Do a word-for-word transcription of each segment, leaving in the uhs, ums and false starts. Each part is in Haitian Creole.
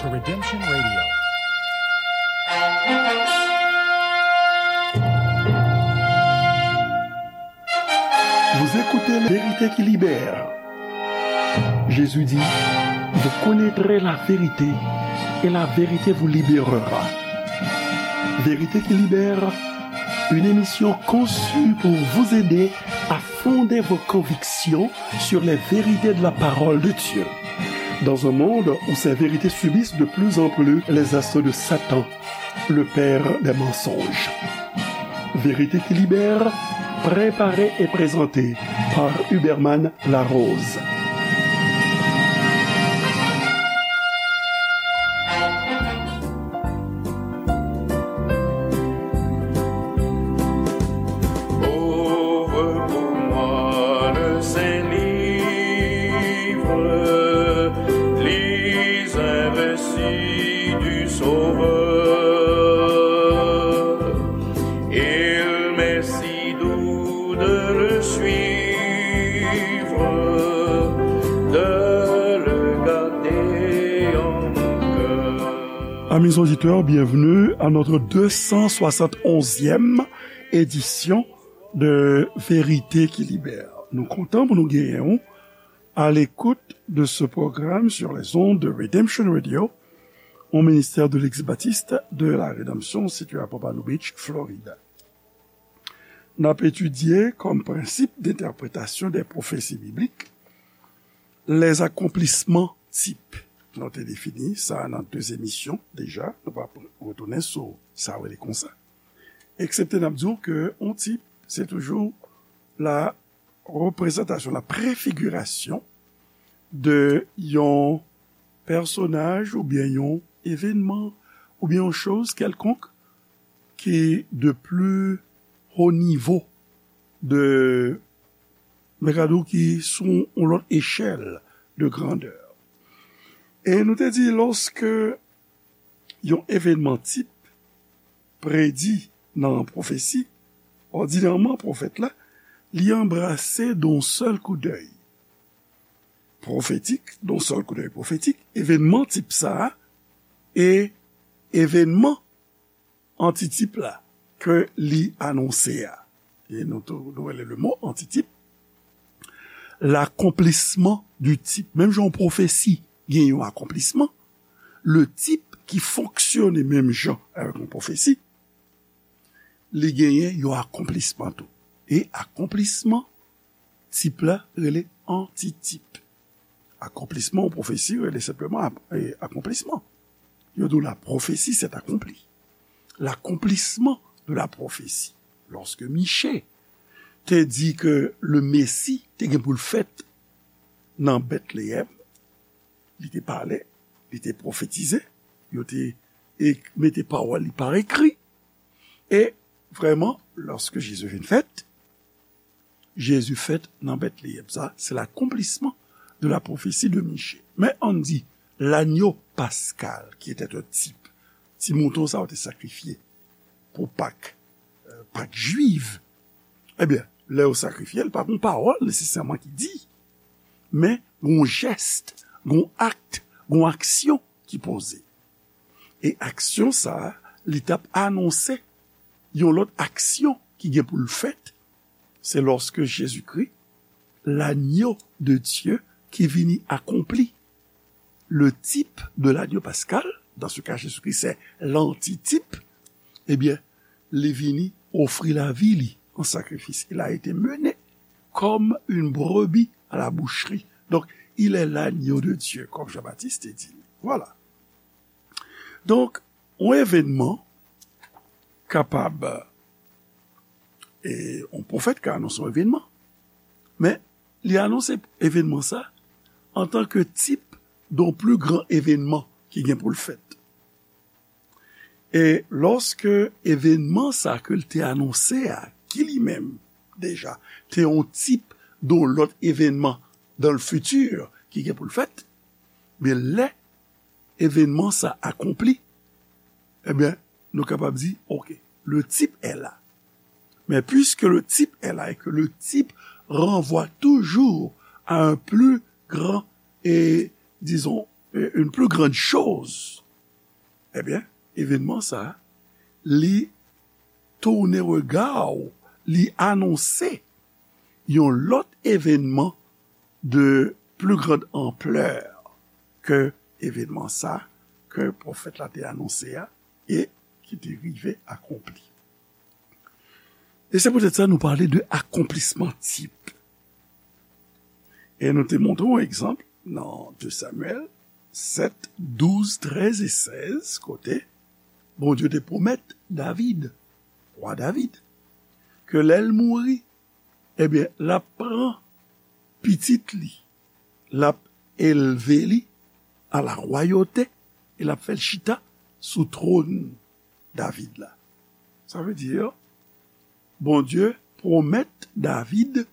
Redemption Radio. Vous écoutez Vérité qui libère. Jésus dit, vous connaîtrez la vérité et la vérité vous libérera. Vérité qui libère, une émission conçue pour vous aider à fonder vos convictions sur les vérités de la parole de Dieu. Dans un monde où ces vérités subissent de plus en plus les assauts de Satan, le père des mensonges. Vérité qui libère, préparée et présentée par Huberman Larose. Ouvre pour moi le Saint-Livre, lis un récit du Sauveur. Il m'est si doux de le suivre, de le garder en mon cœur. Amis auditeurs, bienvenue à notre deux cent soixante et onzième édition de Vérité qui Libère. Nou kontan pou nou genyen w à l'écoute de ce programme sur les ondes de Redemption Radio, au ministère de l'ex-baptiste de la Rédemption situé à Pompano Beach, Florida. N ap etidye comme principe d'interprétation des prophéties bibliques les accomplissements types. Nou te defini sa nan de emisyon deja. Nou pa retounen sou sa rele konsa. Eksepte n ap di w ke yon tip, se toujou la reprezantasyon, la prefigirasyon de yon pèsonaj oubyen yon evènman oubyen yon choz kèlkonk ki de pli ho nivo, de, men gade w ki sou yon lòt echèl de grandè. E nou te di, lòske yon evènman tip predi nan pwofesi, òdinèman pwofèt la, li anbrase d'un seul coup d'œil pwofetik, d'un seul coup d'œil pwofetik, evènman tip sa a, e evènman antitip la ke li anonse a. E nou tou, nou rele le mo antitip l'accomplissement du type. Menm jan yon pwofesi gen yon akonplisman, le type ki fonksyone menm jan avèk yon pwofesi, li genyen yon akonplisman tou. E akonplisman tip la rele antitip. Akonplisman yon pwofesi rele senpleman ap-, e, akonplisman. Yo di w la prophétie s'est accomplie. L'accomplissement de la prophétie. Lòske Miche te di ke le Messie te gen pou l fèt nan Bètleyèm, li te pale, li te pwofetize, yo te ek-, mete pawòl li pa ekri. E vrèman, lòske Jezi vin fèt, Jezi fèt nan Bètleyèm. Sa, se l'accomplissement de la prophétie de Miche. Men ann di, lanyo paskal, ki etè yon tip, ti mouton sa yo te sakrifye pou Pak, euh, Pak jwiv. Ebyen, lè yo sakrifye l, pa gon pawòl nesesèman ki di, men gon jès, gon akt, gon aksyon ki poze. E aksyon sa a, li t ap anonse yon lòt aksyon ki gen pou l fèt. Se lòske Jezikri, l'agneau de Dieu, ki vini akonpli, le type de l'agneau pascal, dans ce cas Jésus-Christ c'est l'antitype, ebyen, li vini ofri lavi li an sakrifis. Il a été mené comme une brebis à la boucherie. Donc, il est l'agneau de Dieu, comme Jean-Baptiste te di. Voilà. Donk, yon evènman kapab, e yon pwofèt ka anonse yon evènman, men li anonse evènman sa antanke tip de yon pli gran evènman ki gen pou l fèt. E lòske evènman sa ke l te anonse a, ki li menm deja te yon tip de yon lòt evènman dans le futur ki gen pou l fèt, men lè evènman sa akonpli, ebyen, nou kapab di, OK, le type est là. Mais puisque le type est là et que le type renvoie toujours à un plus grand et, disons, euh, une plus grande chose, ebyen, evènman sa, li tounen rega w, li anonse yon lòt evènman de plus grande ampleur ke evènman sa ke pwofèt la te anonse a e ki te rive akonpli. E se poutèt sa nou pale de akonplisman tip. E nou te montre yon egzanp nan de Samyèl sèt, douz, trèz e sèz, kote Bondye te pwomèt David, wa David, ke lè l mouri, ebyen, l ap pran pitit li, l ap elve li a la rwayote, e l ap fè l chita sou twòn David la. Sa vle di, Bondye pwomèt David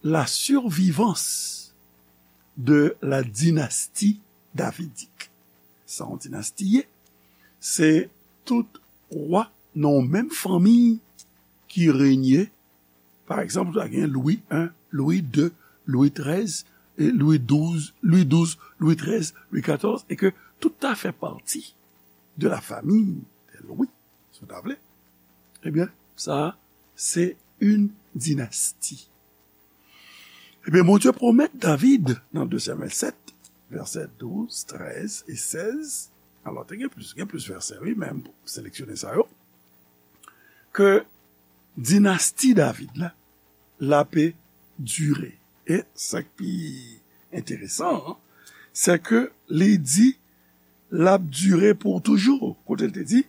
la survivance de la dynastie davidique. Sa yon dinasti ye, se tout wa nan yon menm fanmi ki renye. Pa egzanp, ou ta gen Lwi en, Lwi de, Lwi trèz, e Lwi douz, Lwi douz, Lwi trèz, Lwi katòz, e ke tout ta fè pati de la famille des Louis, si w ta vle. Ebyen, sa, se yon dinasti. Ebyen, Bondye pwomèt David nan de Samyèl sèt, vèsè douz, trèz e sèz. Alò, te gen plis, gen plis vèsè, wi, men m seleksyone sa yo. Ke dinasti David la, l ape dire. E sa k pi enteresan an, se ke li di l ap dire pou toujou. Kote l te di,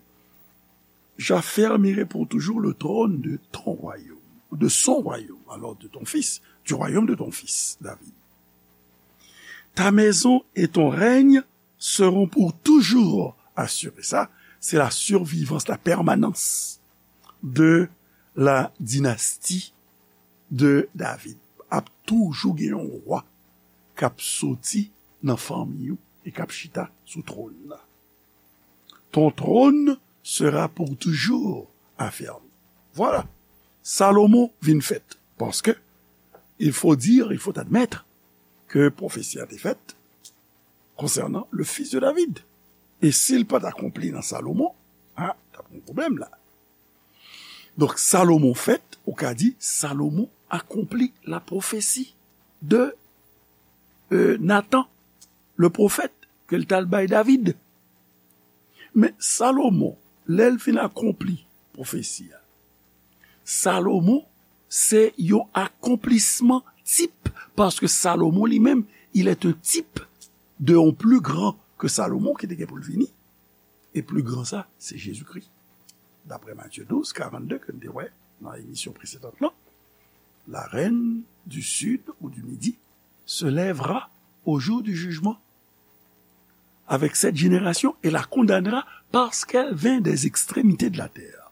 j'affermirai pour toujours le trône de ton royaume, de son royaume, alors de ton fils, du royaume de ton fils, David. Ta maison et ton règne seront pour toujours assurés. Sa, se la survivance, la permanence de la dynastie de David. Ap toujou gen yon wa k ap soti nan fanmi ou e k ap chita sou twòn nan. Ton trône sera pour toujours affermi. Vwala. Salomon vin fèt. Paske, il faut dire, il faut admettre ke pwofesi a te fèt concernant le fils de David. E si l pa t akonpli nan Salomon, a, t ap gen pwoblèm la. Donk, Salomon fèt, ou ka di, Salomon akonpli la pwofesi de, euh, Nathan, le pwofèt, ke l t al bay David. Men Salomon, lè l fin akonpli pwofesi a, Salomon se yon akonplisman tip, paske Salomon li menm, il est un type de yon pli gran ke Salomon ki te gen pou l vini. E pli gran sa, se Jezikri. Daprè Matye douz, karannde, ke n te wè nan emisyon presedan lan, la reine du sud ou du midi se lèvera au jour du jugement avec cette génération et la condamnera parce qu'elle vint des extrémités de la terre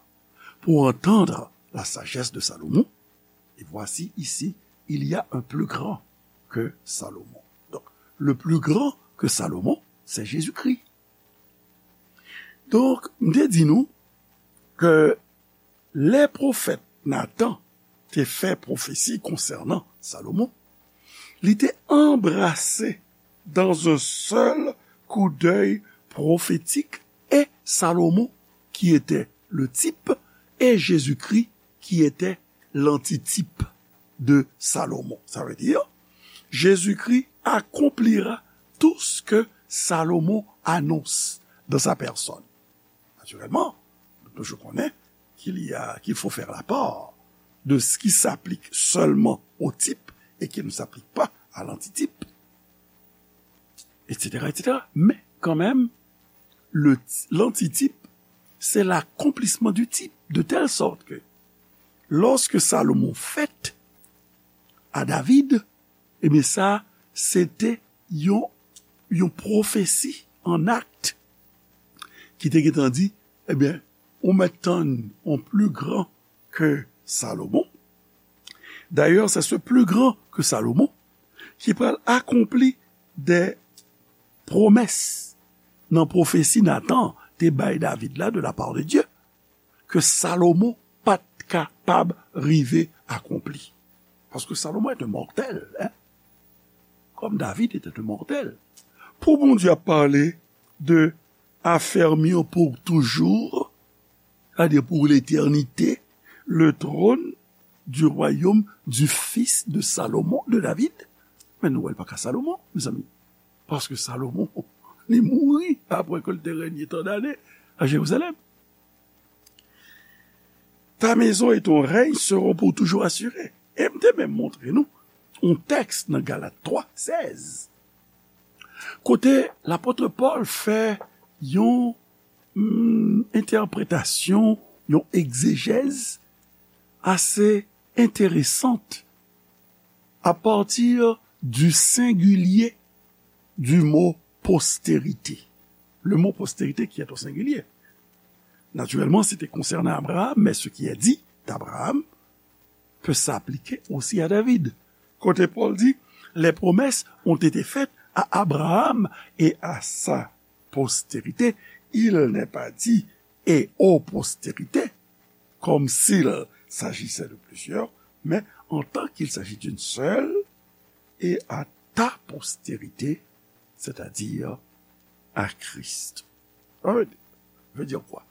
pour entendre la sagesse de Salomon. Et voici ici, il y a un plus grand que Salomon. Donc, le plus grand que Salomon, c'est Jésus-Christ. Donk, m te di nou ke lè pwofèt Natan te fè pwofesi konsènan Salomon, li te anbrase dans un seul coup d'œil prophétique et Salomon qui était le type et Jésus-Christ qui était l'antitype de Salomon. Ça veut dire, Jésus-Christ accomplira tout ce que Salomon annonce dans sa personne. Naturellement, nou toujou konnen qu'il y a, qu'il faut faire la part de ce qui s'applique seulement au type et qui ne s'applique pas à l'antitype, et cetera, et cetera. Men kanmenm, le, l'antitype, c'est l'accomplissement du type, de telle sorte que lorsque Salomon fèt à David, ebyen sa, se te yon, yon pwofesi an akt ki te gentan di, ebyen, ou mèt tann yon pli gran ke Salomon. D'ailleurs, c'est ce plus grand que Salomon qui pral akonpli des promesses nan pwofesi Natan te bay David la de la part de Dieu, ke Salomon pa t kapab rive akonpli. Paske Salomon est un mortel, hein? Comme David était un mortel. Pou Bondye ap pale de affermir pour toujours, c'est-à-dire pour l'éternité, le trône du royaume du fils de Salomon, de David. Men nou wè l pa ka Salomon, mezanmi. Paske Salomon, li mouri apre ke l te renye tan dane a Jerizalèm. Ta maison et ton règne seront pour toujours assurés. E m te menm montre nou yon tèks nan Galat twa sèz, kote lapot Pòl fè yon mm, entèpretasyon, yon egzejèz ase enteresant à partir du singulier du mot postérité. Le mot postérité qui est au singulier. Naturellement, c'était concernant Abraham, mais ce qui est dit d'Abraham peut s'appliquer aussi à David. Kote Pòl di, les promesses ont été faites à Abraham et à sa postérité. Il n'est pas dit et aux postérités, comme s'il s'agissait de plusieurs, mais en tant qu'il s'agit d'une seule, et à ta postérité, c'est-à-dire à Christ. Alright. Veut dire quoi?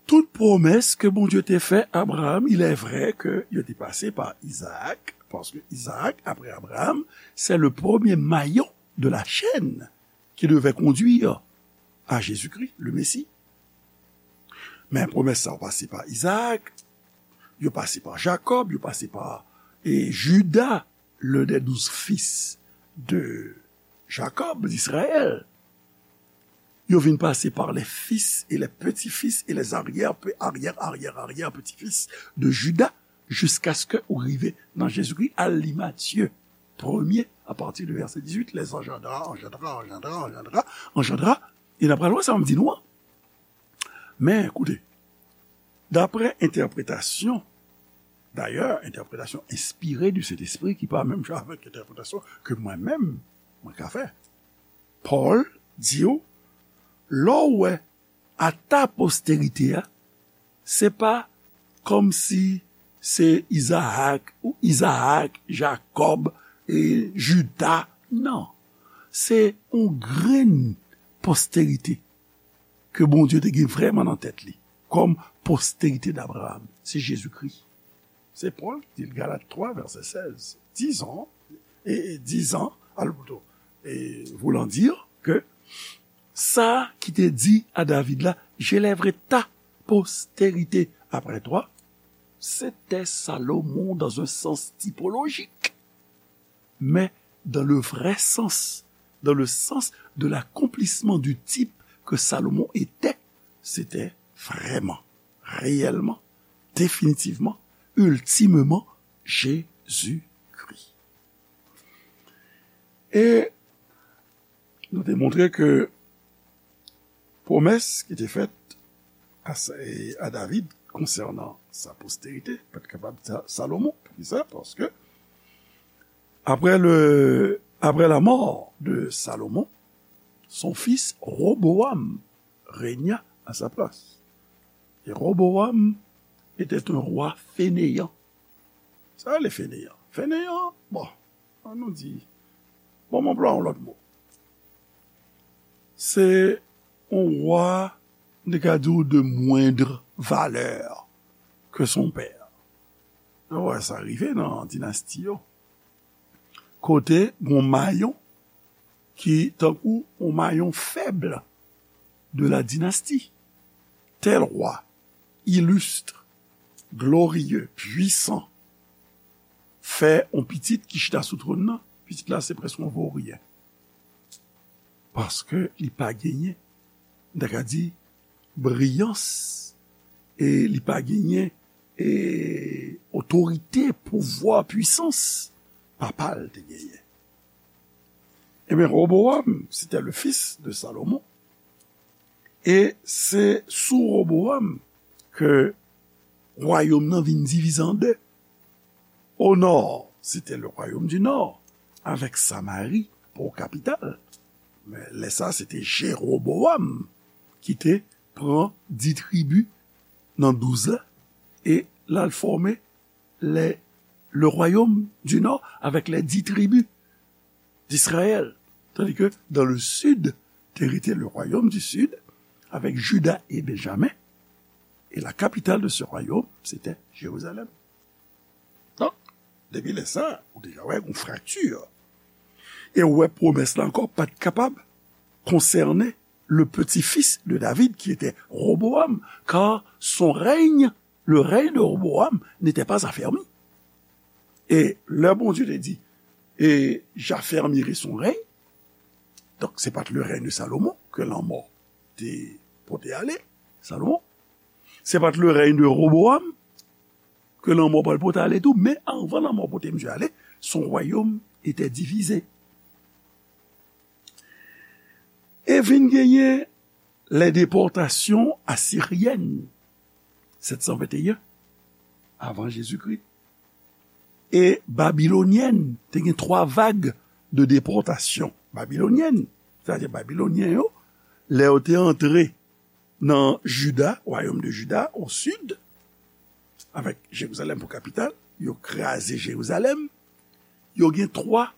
Tout pwomès ke Bondye te fè Abraham, il est vrai ke yo te pase pa Izaak, paske Izaak, apre Abraham, c'est le premier maillon de la chaîne qui devait conduire à Jésus-Christ, le Messie. Men pwomès sa yo pase pa Izaak, yo pase pa Jakòb, yo pase pa e Jida, l'un des douze fils de Jacob, d'Israël. Yo vin pase par les fils et les petits-fils et les arrière, arrière, arrière, arrière petits-fils de Juda, jiskaske ou rive nan Jezikri. Al li Matye premye, apati de vèsè dizuit, les engendra, engendra, engendra, engendra, engendra, e n ap pral wè sa m di nou an. Men, koute, daprè entèpretasyon, dayè, entèpretasyon enspire du Sentespri ki pa menm jan avèk entèpretasyon ke mwen menm, mwen ka fè. Pòl di w, lè w wè à ta postérité a, se pa kòmsi se Izaak ou Izaak, Jakòb, e Jida. Non. Se yon grenn postérité ke Bondye te gen vrèman nan tèt li kòm postérité d'Abraham. Se Jezikri. Se Pòl ki di l, Galat twa, vèsè sèz. Dizon, e, e dizon, al pito, e voulant dire ke sa ki te di a David la, j'élèverai ta postérité après toi, c'était Salomon dans un sens typologique, mais dans le vrai sens, dans le sens de l'accomplissement du type que Salomon était, c'était vraiment, réellement, définitivement, ultimement Jésus-Christ. E nou te montre ke pwomès ki te fèt a, a David konsènan sa postérité pa t kapab Sa-, Salomon. Poukisa? Paske après le, après la mort de Salomon, son fils Roboam régna à sa place. Et Roboam était un roi fainéant. Sa le fainéant? Fainéant, bon, ann nou di, bon, m anplwaye yon lòt mo. Se yon wa, nou ka di w, de moindre valeur que son père. Nou wè sa rive nan dinasti yo. Kote gon mayon ki tankou yon mayon fèb de la dynastie. Tel roi, illustre, glorieux, puissant, fè yon pitit ki chita sou twòn nan, pitit la se prèske yon voryen. Paske li pa genyen, m ta ka di, briyans, e li pa genyen, e otorite, pouvwa, pwisans papa l te genyen. Ebyen, Roboam, c'était le fils de Salomon, e se sou Roboam ke wayòm nan vin divize an de. Au nord, c'était le royaume du nord, avec Samarie pour capitale. Men lè sa, se te Jeroboam ki te pran dis tribi nan douz la, e l al fòme le, le royaume du nord avec les dix tribus d'Israël. Tandis que dans le sud, te rete le royaume du sud, avec Juda et Benjamin, et la capitale de ce royaume, c'était Jérusalem. Donk, depi lè sa, ou deja wè yon frakti. E ou wè pwomès la ankò pa t kapab konsène le petit-fils de David, qui était Roboam, car son règne, le règne de Roboam n'était pas affermi. E lè Bondye te di, et j'affermirai son règne, donk se pa t le règne de Salomon ke lanmò te pote ale, Salomon, se pa t le règne de Roboam ke lanmò pral pote ale tou, men anvan lanmò pote misye ale, son royaume était divisé. E vin genyen les déportations assyriennes, sept cent vingt et un avant Jésus-Christ, e babyloniennes, te gen twa vag de depòtasyon babilonyèn, sètadi babilonyen yo, lè yo te antre nan Juda, royaume de Juda, au sud, avec Jérusalem pour capitale, yo kraze Jerizalèm, yo gen twa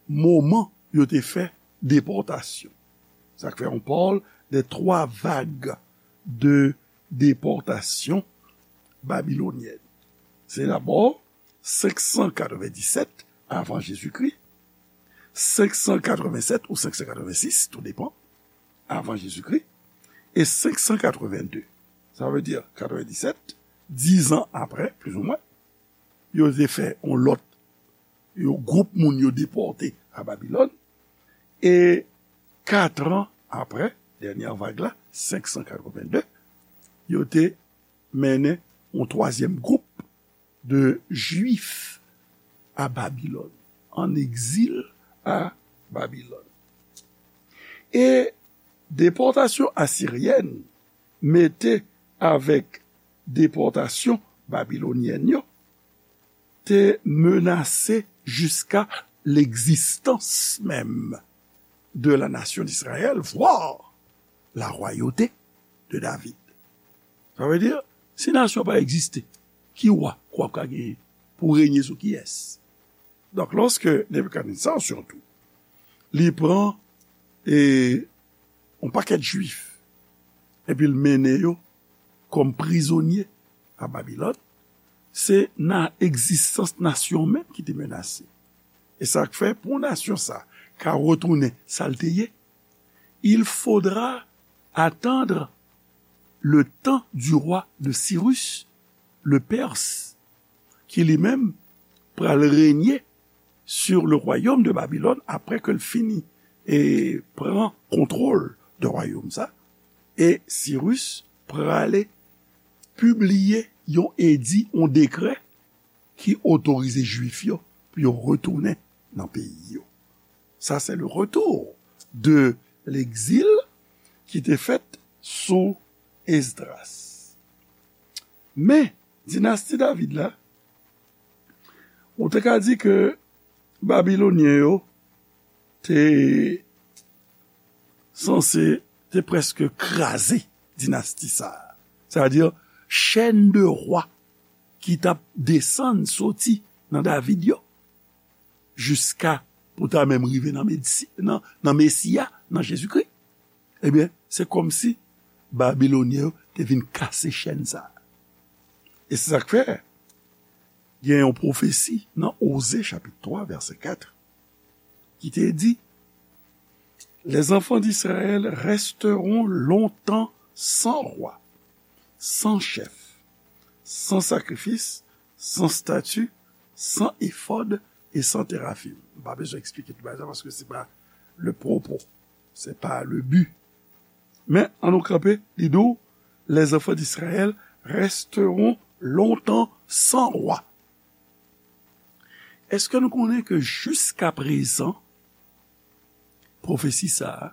moman yo te fè depòtasyon. Sa k fè on parle de trois vagues de déportation babylonienne. Se dabò cinq cent quatre-vingt-dix-sept avant Jésus-Christ, cinq cent quatre-vingt-sept ou cinq cent quatre-vingt-six, tout dépend, avant Jésus-Christ, e cinq cent quatre-vingt-deux. Sa vle di quatre-vingt-dix-sept, dizan apre, plizoumwen, yo te fè on lòt, yo gwoup moun yo depòte a Babilòn, e katran apre, dènyè vag la, cinq cent quatre-vingt-deux, yo te mennen on twazyèm gwoup de Jwif a Babilòn, an egzil a Babilòn. E depòtasyon asiryèn mete avèk depòtasyon babilonyèn yo te menase jiska l'existence même de la nation d'Israël, voire la royauté de David. Sa vle di, si nasyon pa egziste, ki wa k w ap ka genyen pou renye sou kiyès? Donk, lòske Nebikadneza, sirtou, li pran e, on pakèt Jwif, epi l mennen yo kòm prizonye a Babilòn, se nan egzistans nasyon menm ki te menase. E sa k fè, pou nasyon sa ka retounen sa l te ye, il faudra attendre le temps du roi de Cyrus, le Perse, ki li menm pral renye sur le royaume de Babylone, apre ke l fini e pran kontwòl de wayòm sa, e Sirus prale pibliye yon edi, yon dekrè ki otorize Jwif yo pou yo retounen nan peyi yo. Sa se le retour de l'exil ki te fèt sou Esdras. Men, dinasti David la, ou te ka di ke Babilonyen yo te sanse, te prèske kraze dinasti sa a. Sa vle di, chèn de wa ki t ap desann soti nan David yo, jiska pou ta menm rive nan Mesi-, nan, nan Mesi a, nan Jezikri. Ebyen, se kòmsi Babilonyen yo te vin kase chèn sa a. E se sa k fè, gen yon pwofesi nan Oze chapit twa, vèsè kat, ki te di, les enfants d'Israël resteront longtemps sans roi, sans chef, sans sacrifice, sans statue, sans éphod et sans térafim. M pa bezwen eksplike tout bagay sa paske se pa le propos, se pa le but. Men, ann nou kanpe, li di w, les enfants d'Israël resteront longtemps sans roi. Èske nou konnen ke jiska prezan, pwofesi sa a,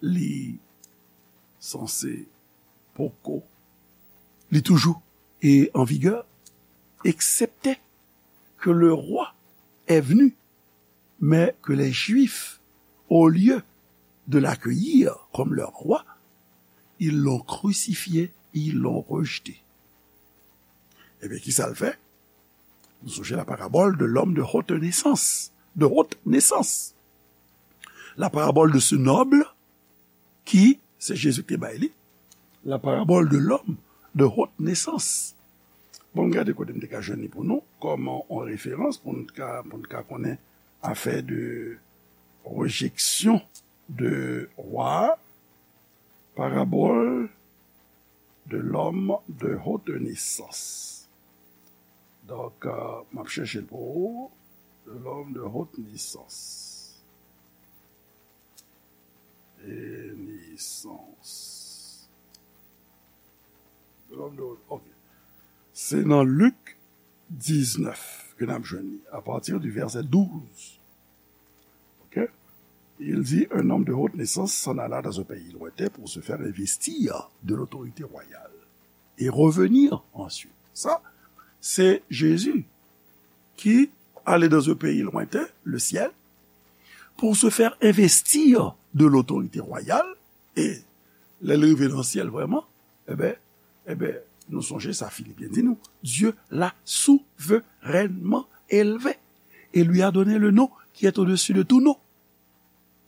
li sanse poko, li toujou e an vigè, excepté que le roi est venu, mais que les Juifs, au lieu de l'accueillir comme leur roi, ils l'ont crucifié, ils l'ont rejeté. Ebyen, ki sa l fè? Nou sonje la parabole de l'homme de haute naissance, de haute naissance. la parabole de ce noble qui, se Jezi ki te bay li, la parabole de l'homme de haute naissance. Bon, m gade kote m te ka jwenn li pou nou, kòm yon referans pou n ka, pou n ka konnen afè de rejection de roi, parabole de l'homme de haute naissance. Donk, euh, m ap chèche l pou ou. De l'homme de haute naissance. Et naissance. De l'homme de haute, ok. Se nan Lik diznèf ke n ap jwenn li, à partir du verset douze. Ok? Il dit, un homme de haute naissance s'en alla dans un pays lointain pour se faire investir de l'autorité royale et revenir ensuite. Sa, se Jezi ki ale dans un pays lointain, le ciel, pour se faire investir de l'autorité royale, e lè l rive nan syèl vrèman, eben, eben, nou sonje sa Filipyen di nou, Dieu l'a souverainement élevé et lui a donné le nom qui est au-dessus de tout nom,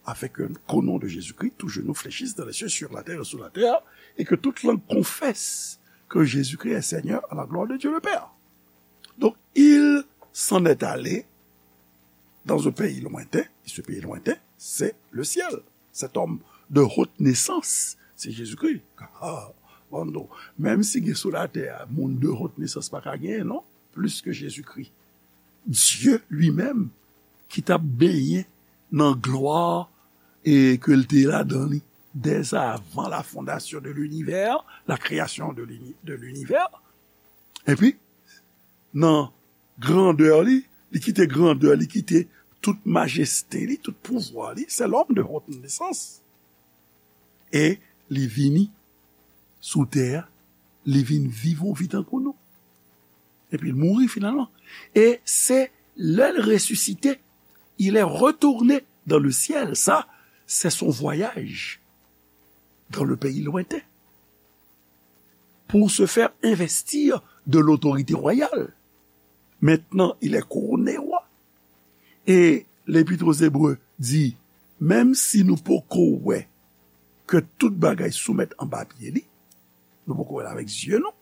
afin que, qu'au nom de Jésus-Christ, tout genou fléchisse dans les cieux, sur la terre et sous la terre, et que toute langue confesse que Jésus-Christ est Seigneur, à la gloire de Dieu le Père. Donc, il s'en est allé dans un pays lointain, et ce pays lointain, c'est le ciel. Cet homme de haute naissance, c'est Jésus-Christ. Ah, bon, non. Menm si gen sou latè a, moun de haute naissance pa ka genyen, non? Plis ke Jezikri. Dye li menm ki t ap benyen nan glwa e ke l te ladan li dès avant la fondation de l'univers, la création de l'uni-, de l'univers. Epi, nan grandè li, li kite grandè, li kite tout majeste li, tout pouvwa li, c'est l'homme de haute naissance. E li vini sou tè a, li vin viv yon vi tankou nou. Epi l mouri finalman. E se lè l resisite, il est retourné dans le ciel. Ça, c'est son voyage dans le pays lointain pour se faire investir de l'autorité royale. Maintenant, il est couronné roi. E L'Épître aux Hébreux di, menm si nou poko wè ke tout bagay soumèt anba pye li, nou poko wè l avèk zye nou,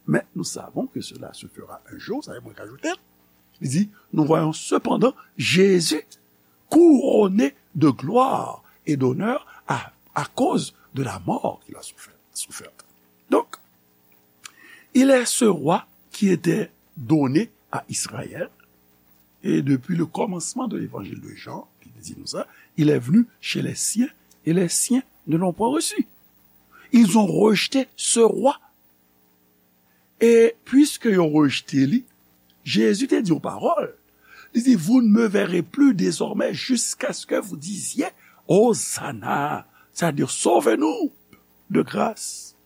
mais nous savons que cela se fera un jour, sa e mwen k ajoute l, li di, nous voyons cependant Jésus couronné de gloire et d'honneur à, à cause de la mort qu'il a souffert, soufferte. Donc, il est ce roi qui était donné à Israël, et depuis le commencement de l'évangile de Jean, ki te di nou sa, il est venu chez les siens, et les siens ne l'ont point reçu. Ils ont rejeté ce roi. E piske yo rejte li, Jezi te di yon pawòl. Li di, vous ne me verrez plus désormais jusqu'à ce que vous disiez, Hosanna, c'est-à-dire, sauve-nous de grâce.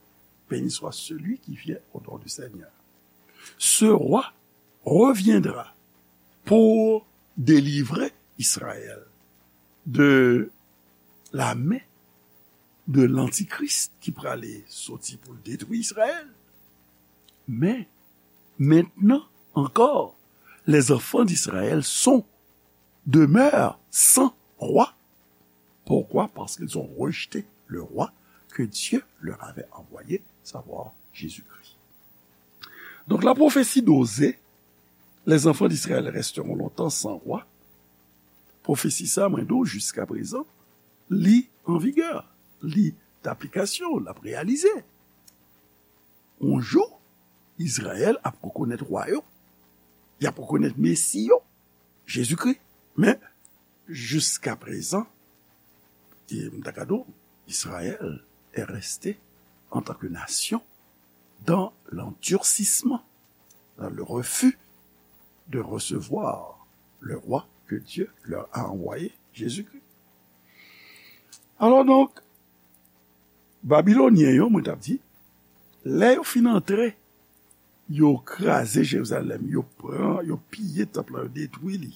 Béni soit celui qui vient au nom du Seigneur. Ce roi reviendra pour délivrer Israël de la main de l'antichrist ki prale soti pou l detwi Israël. Men, maintenant encore, les enfants d'Israël sont, demeurent sans roi. Pourquoi? Parce qu'ils ont rejeté le roi que Dieu leur avait envoyé, savoir Jésus-Christ. Donc la prophétie d'Osée, les enfants d'Israël resteront longtemps sans roi. Pwofesi sa, mwen di w, jiska prezan, li an vigè, li d aplikasyon, l ap reyalize. Yon jou, Izrayèl ap rekonèt wa yo, y ap rekonèt Mesi yo, Jezikri. Men, jiska prezan, e m ta ka di w, Israël est resté en tant que nation dans l'endurcissement, dans le refus de recevoir le roi que Dieu leur a envoyé, Jésus-Christ. Alò donk, Babilonyen yo, mwen t ap di, lè yo fin antre, yo kraze Jerizalèm, yo pran, yo piye tanp lan, yo detwi li.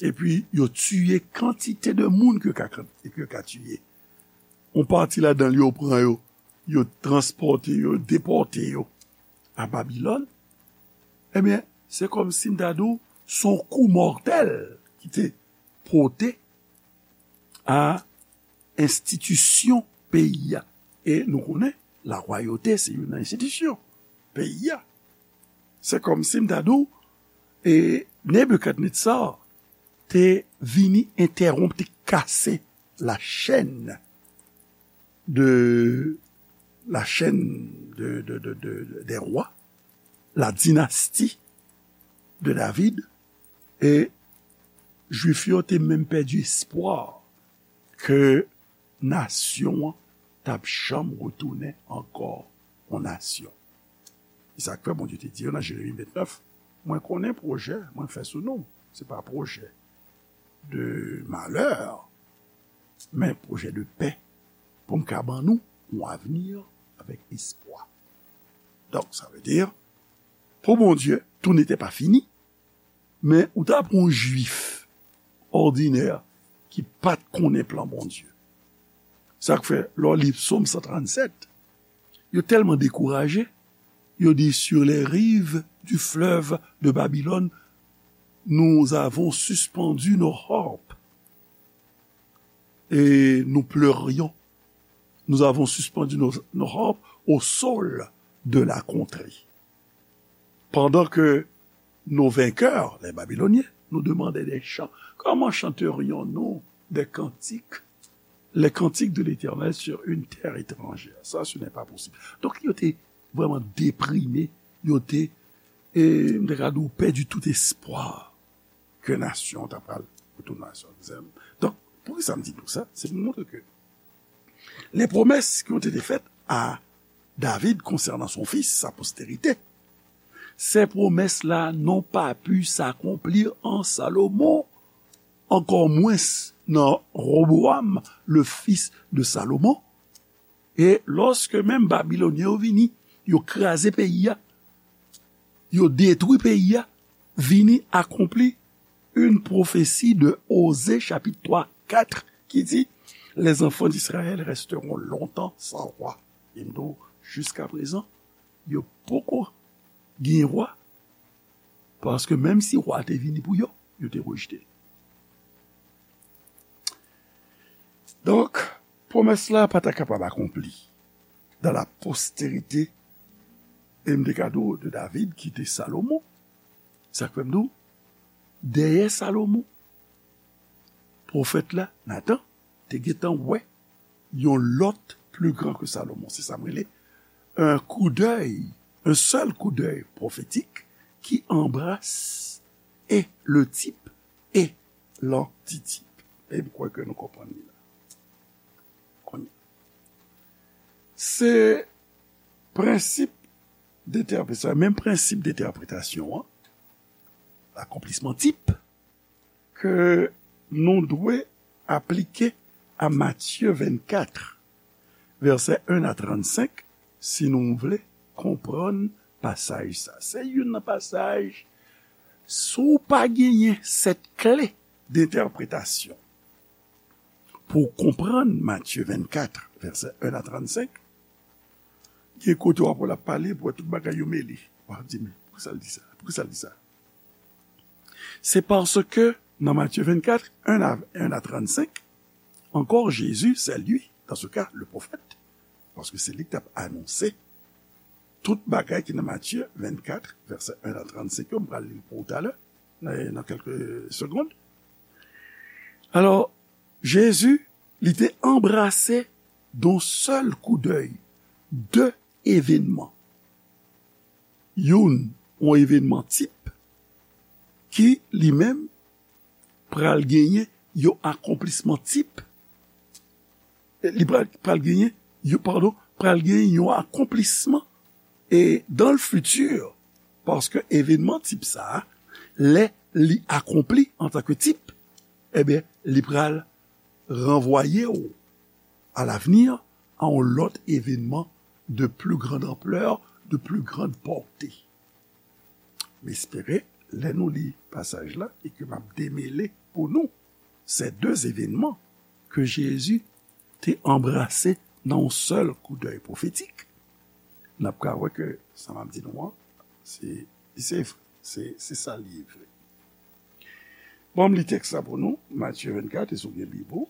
Epi, yo tiye kantite de moun ke yo ka, ke yo ka tiye. Yon pati ladan l, yo pran yo, yo transpòte yo, depòte yo a Babilòn. Ebyen, se kòmsi m ta di w, se yon kou mòtèl ki te pote a enstitisyon peyi a. E nou konnen, larwayote se youn nan enstitisyon peyi a. Se kòmsi m ta di w, e Nebikadnetza te vini entèwonp, te kase la chaîne de, la chaîne de, de, de, de, des rois, la dynastie de David, e Jwif yo te menm pèdi espwa ke nasyon an t ap janm retounen ankò yon nasyon. E sa k fè Bondye te di yo nan Jeremi vennèf, mwen konnen pwojè mwen fè sou nou. Se pa pwojè de malè, men pwojè de pè, pou m ka ban nou yon avni avèk espwa. Donk, sa vle di, pou Bondye, tou n'était pas fini, men ou ta pran yon Jwif òdinè ki pa t konnen plan Bondye. Sa k fè, lè w li Sòm san trannsèt, yo tèlman dekouraje, yo di, sur les rives du fleuve de Babylone, nous avons suspendu nos harpes et nous pleurions. Nous avons suspendu nos, nos harpes au sol de la contrée. Pendant que nos vainqueurs, les Babyloniens, nous demandaient des chants. Comment chanterions-nous des cantiques, les cantiques de l'Éternel sur une terre étrangère? Ça, ce n'est pas possible. Donk, yo te vrèman deprime, yo te, e, m te ka di w, pèdi tout espwa ke nasyon ta pral retounen nasyon. Donk, poukisa m di nou sa? Se pou montre ke les promesses qui ont été faites à David concernant son fils, sa postérité, ces promesses-là n'ont pas pu s'accomplir en Salomon, encore moins dans Roboam, le fils de Salomon. E lòske menm Babilonyen yo vini, yo kraze peyi a, yo detwi peyi a, vini akonpli une prophétie de Osée chapitre trois quatre qui dit, les enfants d'Israël resteront longtemps sans roi. E m di w, jiska prezan, yo poko gen wa, paske menm si wa te vini pou yo, yo te rejte l. Donk, pwomès la pa ta kapab akonpli dans la postérité, e m te ka di w, de David ki te Salomon. Sa k fè m di w, dèyè Salomon, pwofèt la, Natan, te gentan wè yon lòt plus grand que Salomon. Se sa m rele un coup d'œil, un seul coup d'œil prophétique qui embrasse et le type et l'antitype. E m kwè ke nou konprann li la. Kounye a. Se prensip detèpretasyon, menm prensip detèpretasyon an, akonplisman tip, ke nou dwe aplike a Matye vennkat, vèsè en a trannsenk, si nou vle konprann pasaj sa. Se youn nan pasaj, si w pa genyen sèt kle dentèpretasyon pou w konprann Matye vennkat, vèsè en a trannsenk, gen kote w ap wè l ap pale, pou wè tout bagay yo mele. W ap di, men, poukisa l di sa? Poukisa l di sa? C'est parce que dans Matthieu vingt-quatre, un à, un à trente-cinq, encore Jésus, c'est lui, dans ce cas, le prophète, parce que c'est lui qui a annoncé tout bagay ki nan Matthieu vingt-quatre, verset un à trente-cinq, m pral li l pou ou talè, nan, nan kèlke segonn. Alò, Jezi, li te anbrase d'un seul coup d'œil de evènman. Youn, yon evènman tip ki li menm pral genyen yon akonplisman tip. Li pral, pral genyen, yo, padon, pral genyen yon akonplisman e dans le futur, paske evènman tip sa a, lè li akonpli antanke tip, ebyen, li pral ranvwaye w à l'avenir à yon lòt evènman de plus grande ampleur, de plus grande portée. M espere, lè nou li pasaj la e ke m ap demele pou nou ces deux événements que Jésus te anbrase nan yon sèl koudèy pwofetik, n ap ka wè ke sa m ap di nou an, se, se, se, se sa l ye vre. Bon, m li tèks la pou nou, Matye vennkat, e si w gen Bib ou,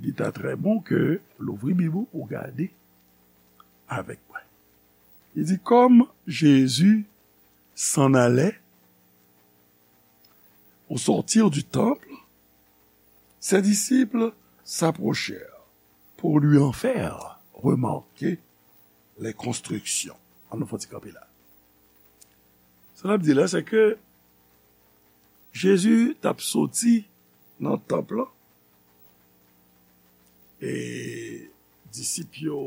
Li ta trè bon ke l ouvri Bib ou pou gade avèk mwen. Li di, comme Jésus s'en allait au sortir du temple, ses disciples s'approchèrent pour lui en faire remarquer les constructions. Ann nou fè yon ti kanpe la. Sa l ap di la, se ke Jezi t ap soti nan tanp lan, e disip yo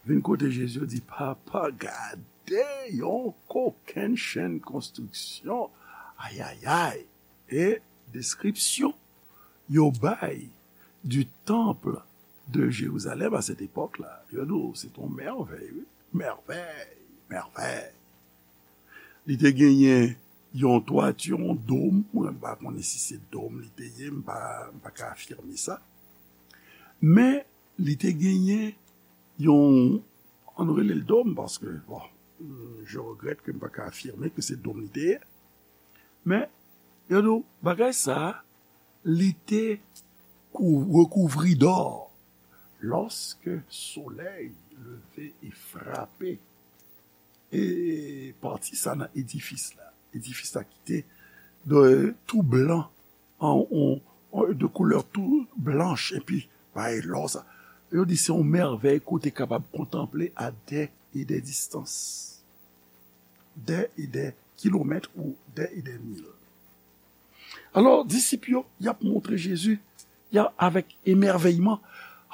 vin kote Jezi, yo di, Papa, gade yon kokennchenn konstriksyon! Ayayay! E deskripsyon yo bay du temple de Jérusalem à cette époque-là, yo di w, se t yon mèvèy, wi. Mèvèy, mèvèy. Li te genyen yon twati, yon dòm, mwen pa konnen si se dòm li te ye, m pa, m pa ka afime sa. Men, li te genyen yon, ann rele l dòm, paske, bon, je regrette que m pa ka afime ke se dòm li te ye. Men, yo di w, bagay sa a, li te kou-, rekouvri dò. Lorsque soleil levé et frappé, e pati sa nan edifis la. Edifis la ki te de, tou blan, an, an, an, de koulè tou blanch, epi bay lò sa. Yo di se yon mèvèy ke w te kapab kontanple à des et des distances. Des et des kilomètres ou des et des mil. Alò, disip yo, y ap montre Jezi, y a, avèk emèvèyman,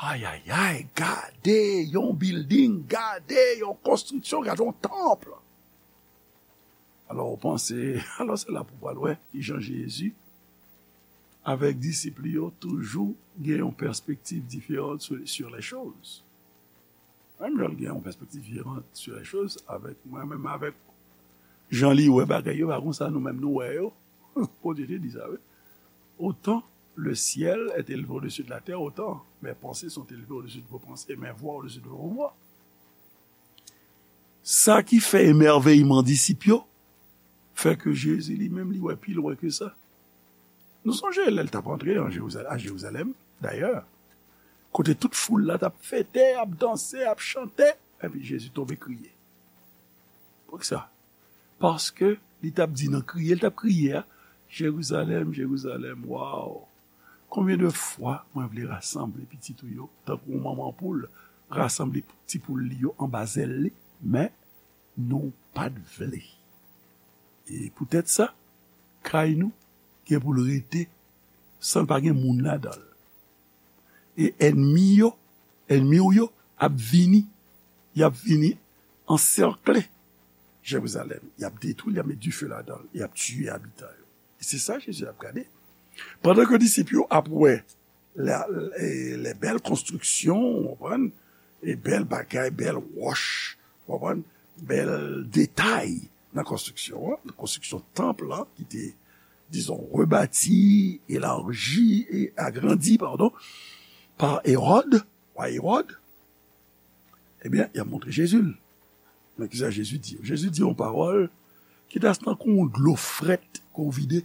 ayayay, gade yon bilding, gade yon konstriksyon, gade yon tanp. Alò, w panse, alò, se la pou w pral wè kijan Jezi, avèk disip li yo, toujou gen yon pèspektiv diferan sur, sur les choses. Menm jan l gen yon pèspektiv diferan sur les choses, avèk mwen, menm avèk jan li wè bagay yo, pa konsa nou menm nou wè yo. Bondye te di sa, wi. Autant le ciel est élevé au-dessus de la terre, autant mes pensées sont élevées au-dessus de vos pensées, mes voies au-dessus de vos voies. Sa ki fè emèvèyman disip yo, fè ke Jezi li menm li wè pi lwen ke sa. Nou sonje lè l t ap antre an Jerizal-, a Jerizalèm, dayè, kote tout foul la t ap fete, ap danse, ap chante, epi Jezi tonbe kriye. Poukisa? Paske li t ap di nan kriye, l t ap kriye a, Jerizalèm, Jerizalèm, waw! Konbyen de fwa mwen vle rasanble pitit ou yo, tankou yon manman poul rasanble ti poul li yo anba zèl li, men nou pa t vle. E poutèt sa, kay nou gen pou l rete san l pa gen moun ladan l. E ènmi yo, ènmi w yo ap vini, y ap vini ansèkle Jerizalèm. Y ap detwi l, y ap met dife ladan l, y ap tiye abitan yo. E se sa Jezi ap gade. Pandan ke disip yo ap wè la, e, lè bèl konstriksyon, w konprann, e bèl bagay, bèl wòch, w konprann, bèl detay nan konstriksyon an, nan konstriksyon tanp lan, ki te, dizon, rebati, elaji e agrandi, padon, pa Ewòd, wa Ewòd, ebyen, y ap montre Jezi l. Men kisa Jezi di yo? Jezi di yon pawòl ki ta tankou yon dlo frèt ke w vide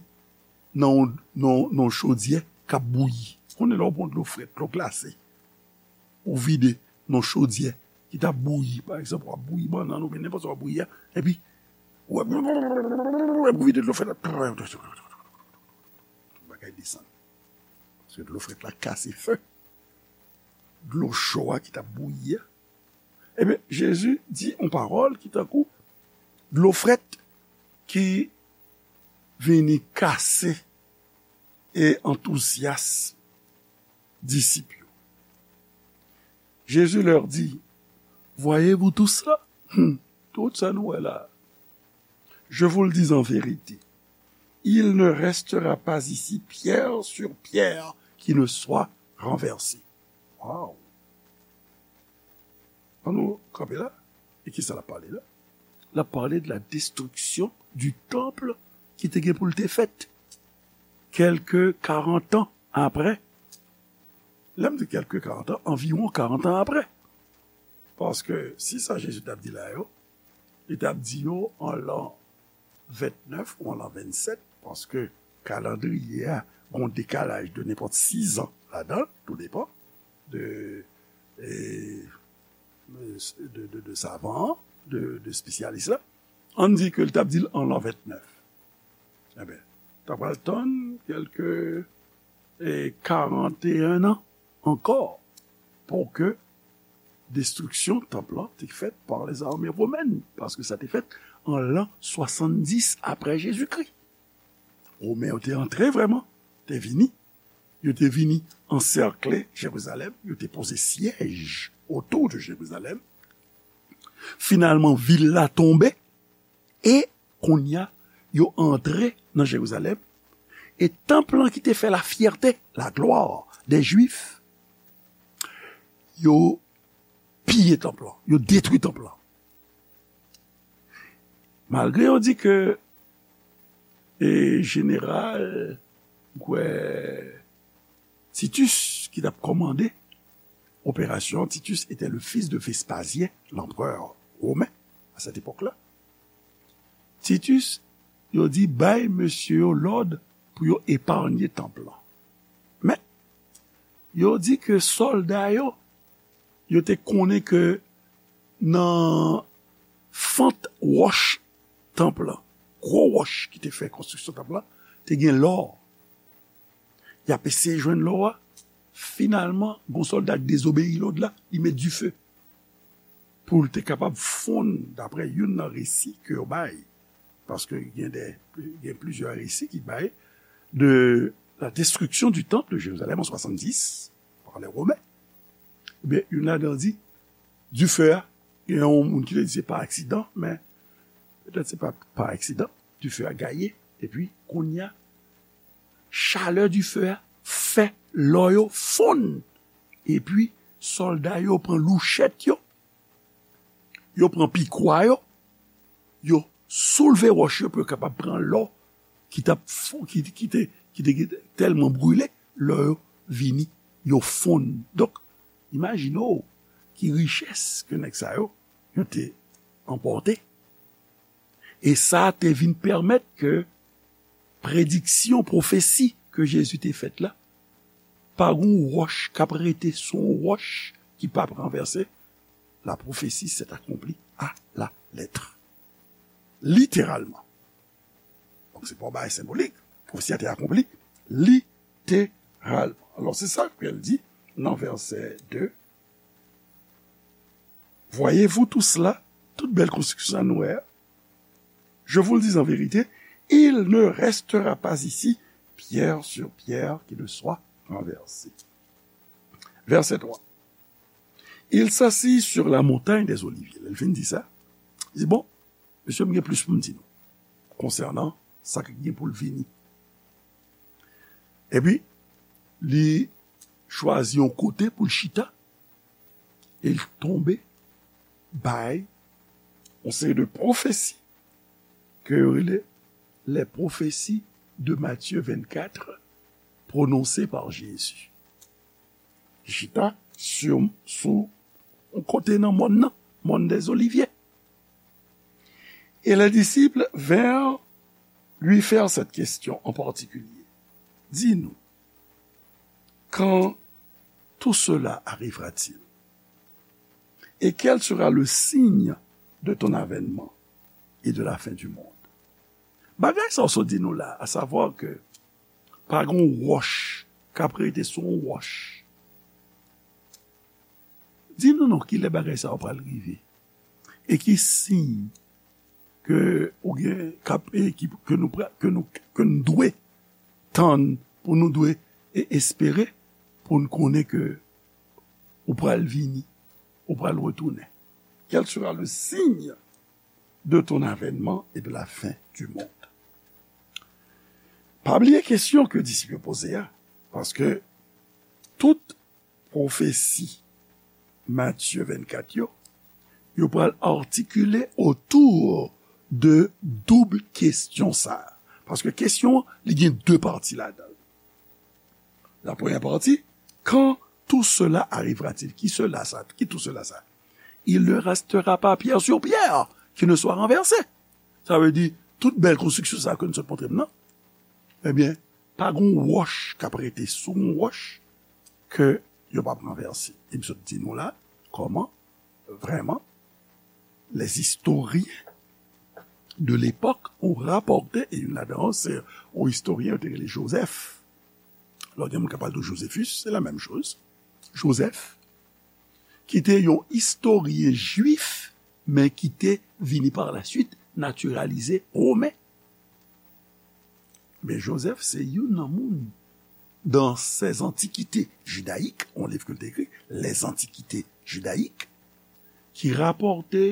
nan yon, nan, nan yon chodyè k ap bouyi. Konnen lè w pran dlo frèt, dlo glase, ou vide nan yon chodyè ki t ap bouyi, pa egzanp, w ap bouyi bannann oubyen nenpòt sa w ap bouyi a, epi w ap, w ap vide dlo frèt la, tout bagay desann. Paske dlo frèt la kase fen dlo cho a ki t ap bouyi a. Ebyen, Jezi di yon pawòl ki tankou dlo frèt ki vini kase e antouzyasm disip yo. Jésus leur dit, Voyez-vous tout cela? Hmm, tout sa nou wè la. Je vous le dis en vérité, il ne restera pas ici pierre sur pierre qui ne soit renversée. Wow! Ann nou kanpe la. E kisa l ap pale la? L ap pale de la destruction du temple ki te gen pou l te fèt kèlke karant an apre. Lè m di kèlke karant an, anviwon karant an apre. Paske si sa Jezi t ap di la yo, li t ap di yo an lan vennèf ou an lan vennsèt, paske kalandriye a gen yon dekalaj de nenpòt sis an ladan l, tou depan de, e, de, de, de savan an, de, de espesyalis la. Ann di ke l t ap di l an lan vennèf. Enben, ta pral tann kèlke, e, karanteyen an ankò pou ke destriksyon tanp lan te fèt pa lèzame womèn, paske sa te fèt an lan swasanndis apre Jezikri. Women yo te antre vrèman, te vini. Yo te vini ansèkle Jerizalèm, yo te poze syèj otou de Jerizalèm. Finalman, vil la tonbe, e kounye a, yo antre nan Jerizalèm, e tanp lan ki te fè lafyète, la gloire des Juifs, yo piye tanp lan, yo detwi tanp lan. Malgre yo di ke, e, jeneral, m kwè, Titus ki t ap kòmande operasyon, Titus était le fils de Vespasien, l'empereur romain, à cette époque-là. Titus, yo di bay mesye yo lòd pou yo epanye tanp lan. Men, yo di ke sòlda yo, yo te konnen ke nan fant wòch tanp lan, gwo wòch ki te fè konstriksyon tanp lan, te gen lò. Y ap eseye jwenn lò a. Finalman, gon sòlda k dezobeyi lòd la, li met dife pou l te kapab fonn, daprè youn nan resi ke yo bay, paske gen de, gen plizyè resi ki bay de la destruction du temple de Jérusalem en soixante-dix par les Romains. Ebyen, youn ladan di, dife a, gen yon moun ki te di se pa aksidan, men petèt se pa pa aksidan, dife a gaye, epi kounye a, chalè dife a fè lò yo fonn. Epi, sòlda yo pran louchèt yo, yo pran pikwa yo, yo soulve wòch yo pou yo kapab pran lò ki t ap fon-, ki, ki te, ki te tèlman brile, lò yo vini, yo fonn. Donk, imajine w ki richès ke nèg sa yo, yo te anpòte. E sa te vin pèmèt ke prediksyon, pwofesi ke Jezi te fèt la, pa gon wòch k ap rete sou yon wòch ki p ap ranvèse, la prophétie s'est accomplie à la lettre. Littéralement. Donk, se pa yon bagay senbolik. Pwofesi a te akonpli literalman. Alò, se sa ke l di nan vèsè de. Voyez-vous tout cela, tout bèl konstriksyon sa nou wè a? Je vous le dis en vérité, il ne restera pas ici pierre sur pierre qui ne soit renversée. Verset trois. Il s'assit sur la montagne des Oliviers. Lè l fin di sa, li di, bon, mesye, m gen plis pou m di nou konsènan sa k gen pou l vini. Epi, li chwazi yon kote pou l chita, e l tonbe bay yon seri de pwofesi ke yo rele les prophéties de Matthieu vingt-quatre prononcées par Jésus. Li chita sou, sou yon kote nan mòn nan, mòn des Oliviers. Et les disciples vinrent lui faire cette question en particulier. Dis-nous, quand tout cela arrivera-t-il? Et quel sera le signe de ton avènement et de la fin du monde? Bagay sa w sot di nou la, a savwa ke pa gen yon wòch k ap rete sou yon wòch. Di nou non, kilè bagay sa yo pral rive? E ki siy ke ou gen, k ap, e ki, ke nou pra-, ke nou, ke n dwe tann, pou nou dwe e espere, pou n konnen ke ou pral vini, ou pral retounen? Quel sera le signe de ton avènement et de la fin du monde? Pa bliye kesyon ke disip yo poze a, paske tout pwofesi Matye vennkat yo, yo pral atikile otou de doub kesyon sa a. Paske kesyon an, li gen de pati ladan l. La premyè pati, quand tout cela arrivera-t-il? Ki sela sa? Ki tout cela sa? Il ne restera pas pierre sur pierre qui ne soit renversée. Sa vle di, tout bèl konstriksyon sa ke nou sot montre m nan, Ebyen, pa gon wòch k ap rete sou yon wòch ke yo p ap ranvèse. E m sot di nou la, kòman, vrèman, les historiens de l'époque ont rapporté, e youn ladan yo, se yon istoryen yo te rele Joseph. Lò gen moun k ap pale de Josephus, se la menm choz. Joseph, ki te yon istoryen jwif, men ki te vini par la suite natiralize women. Men Joseph se youn nan moun dans ses antiquités judaïques, yon liv ke l te ekri, Les Antiquités judaïques, ki rapòte